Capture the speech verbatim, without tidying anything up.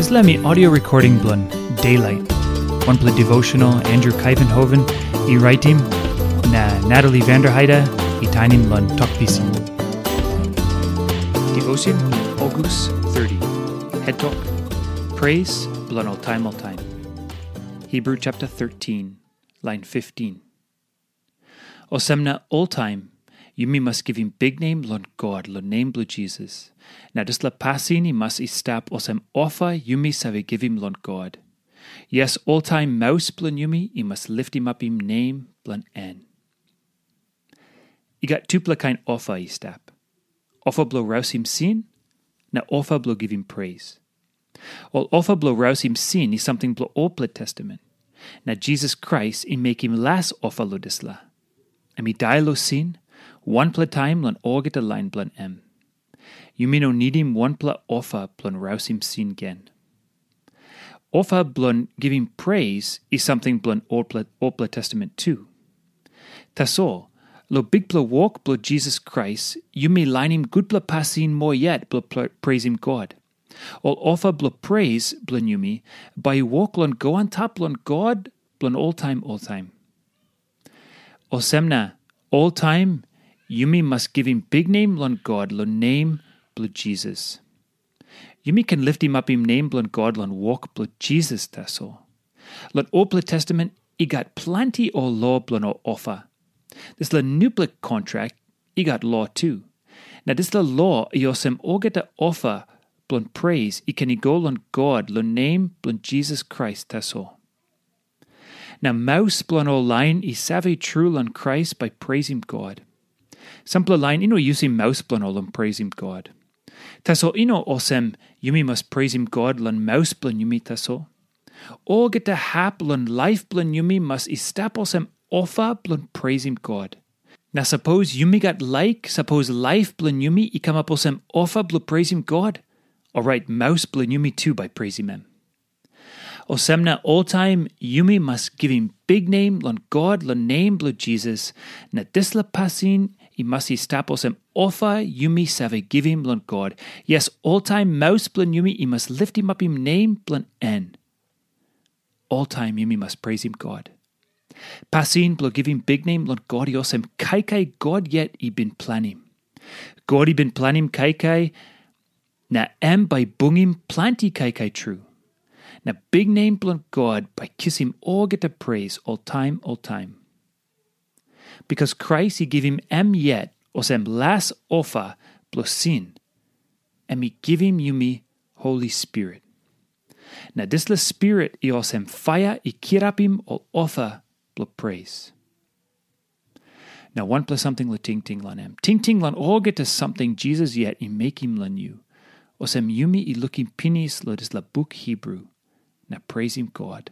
Dispela mi audio recording bilong Daylight, wanpela devotional Andrew Kaivenhoven i raitim, na Natalie Vanderheide i tainim long Tok Pisin. Devotion, August thirty. Head Talk, Praise bilong ol taim ol taim. Hebrew chapter thirteen, line fifteen. Olsem na oltaim yumi mas givim biknem long God long nem bilong Jisas, na dispela pasin i mas i stap olsem ofa yumi save givim long God. Yes, oltaim maus bilong yumi i mas liftimapim nem bilong en. I gat tupela kain ofa i stap. Ofa bilong rausim sin, na ofa bilong givim pres. Ol ofa bilong rausim sin i samting bilong olpela testament. Na Jisas Krais i mekim las ofa long dispela. Em i dai long sin, wanpela taim long olgeta lain bilong em. Yumi no nidim wanpela ofa bilong rausim sin gen. Ofa bilong givim pres i samting bilong olpela, olpela testament tu. Tasol, long bikpela wok bilong Jisas Krais, yumi lainim gutpela pasin moa yet bilong pre- presim God. Ol ofa bilong pres bilong yumi bai i wok long go antap long God bilong oltaim oltaim. Olsem na, oltaim yumi mas givim biknem long God long nem bilong Jisas. Yumi ken liftimapim nem bilong God long wok bilong Jisas tasol. Long olpela testament i gat planti ol lo bilong ol ofa. Dispela nupela kontrak i gat lo tu. Na dispela lo i olsem olgeta ofa bilong pres i ken i go long God long nem bilong Jisas Krais tasol. Na maus bilong ol lain i save tru long Krais bai presim God. Sampela lain i no yusim maus bilong ol long presim God. Tasol i no olsem yumi mas presim God long maus bilong yumi tasol. Olgeta hap long laip bilong yumi mas i stap olsem ofa bilong presim God. Na sapos yumi gat laik, sapos laip bilong yumi i kamap olsem ofa bilong presim God, orait maus bilong yumi tu bai presim em. Olsem na oltaim yumi mas givim biknem long God long nem bilong Jisas, na dispela pasin i mas i stap olsem ofa yumi save givim long God. Yes, oltaim maus bilong yumi i mas liftimapim nem bilong en. Oltaim yumi mas presim God. Pasin bilong givim biknem long God i olsem kaikai God yet i bin planim. God i bin planim kaikai, na em bai bungim planti kaikai tru. Na biknem bilong God bai kisim olgeta pres oltaim oltaim. Bikas Krais i givim em yet olsem las ofa bilong sin, em i givim yumi Holi Spirit. Na dispela Spirit i olsem paia i kirapim ol ofa bilong pres. Na wanpela samting long tingting long em. Tingting long olgeta samting Jisas yet i mekim long yu. Olsem yumi i lukim pinis long dispela buk Hibru, na presim God.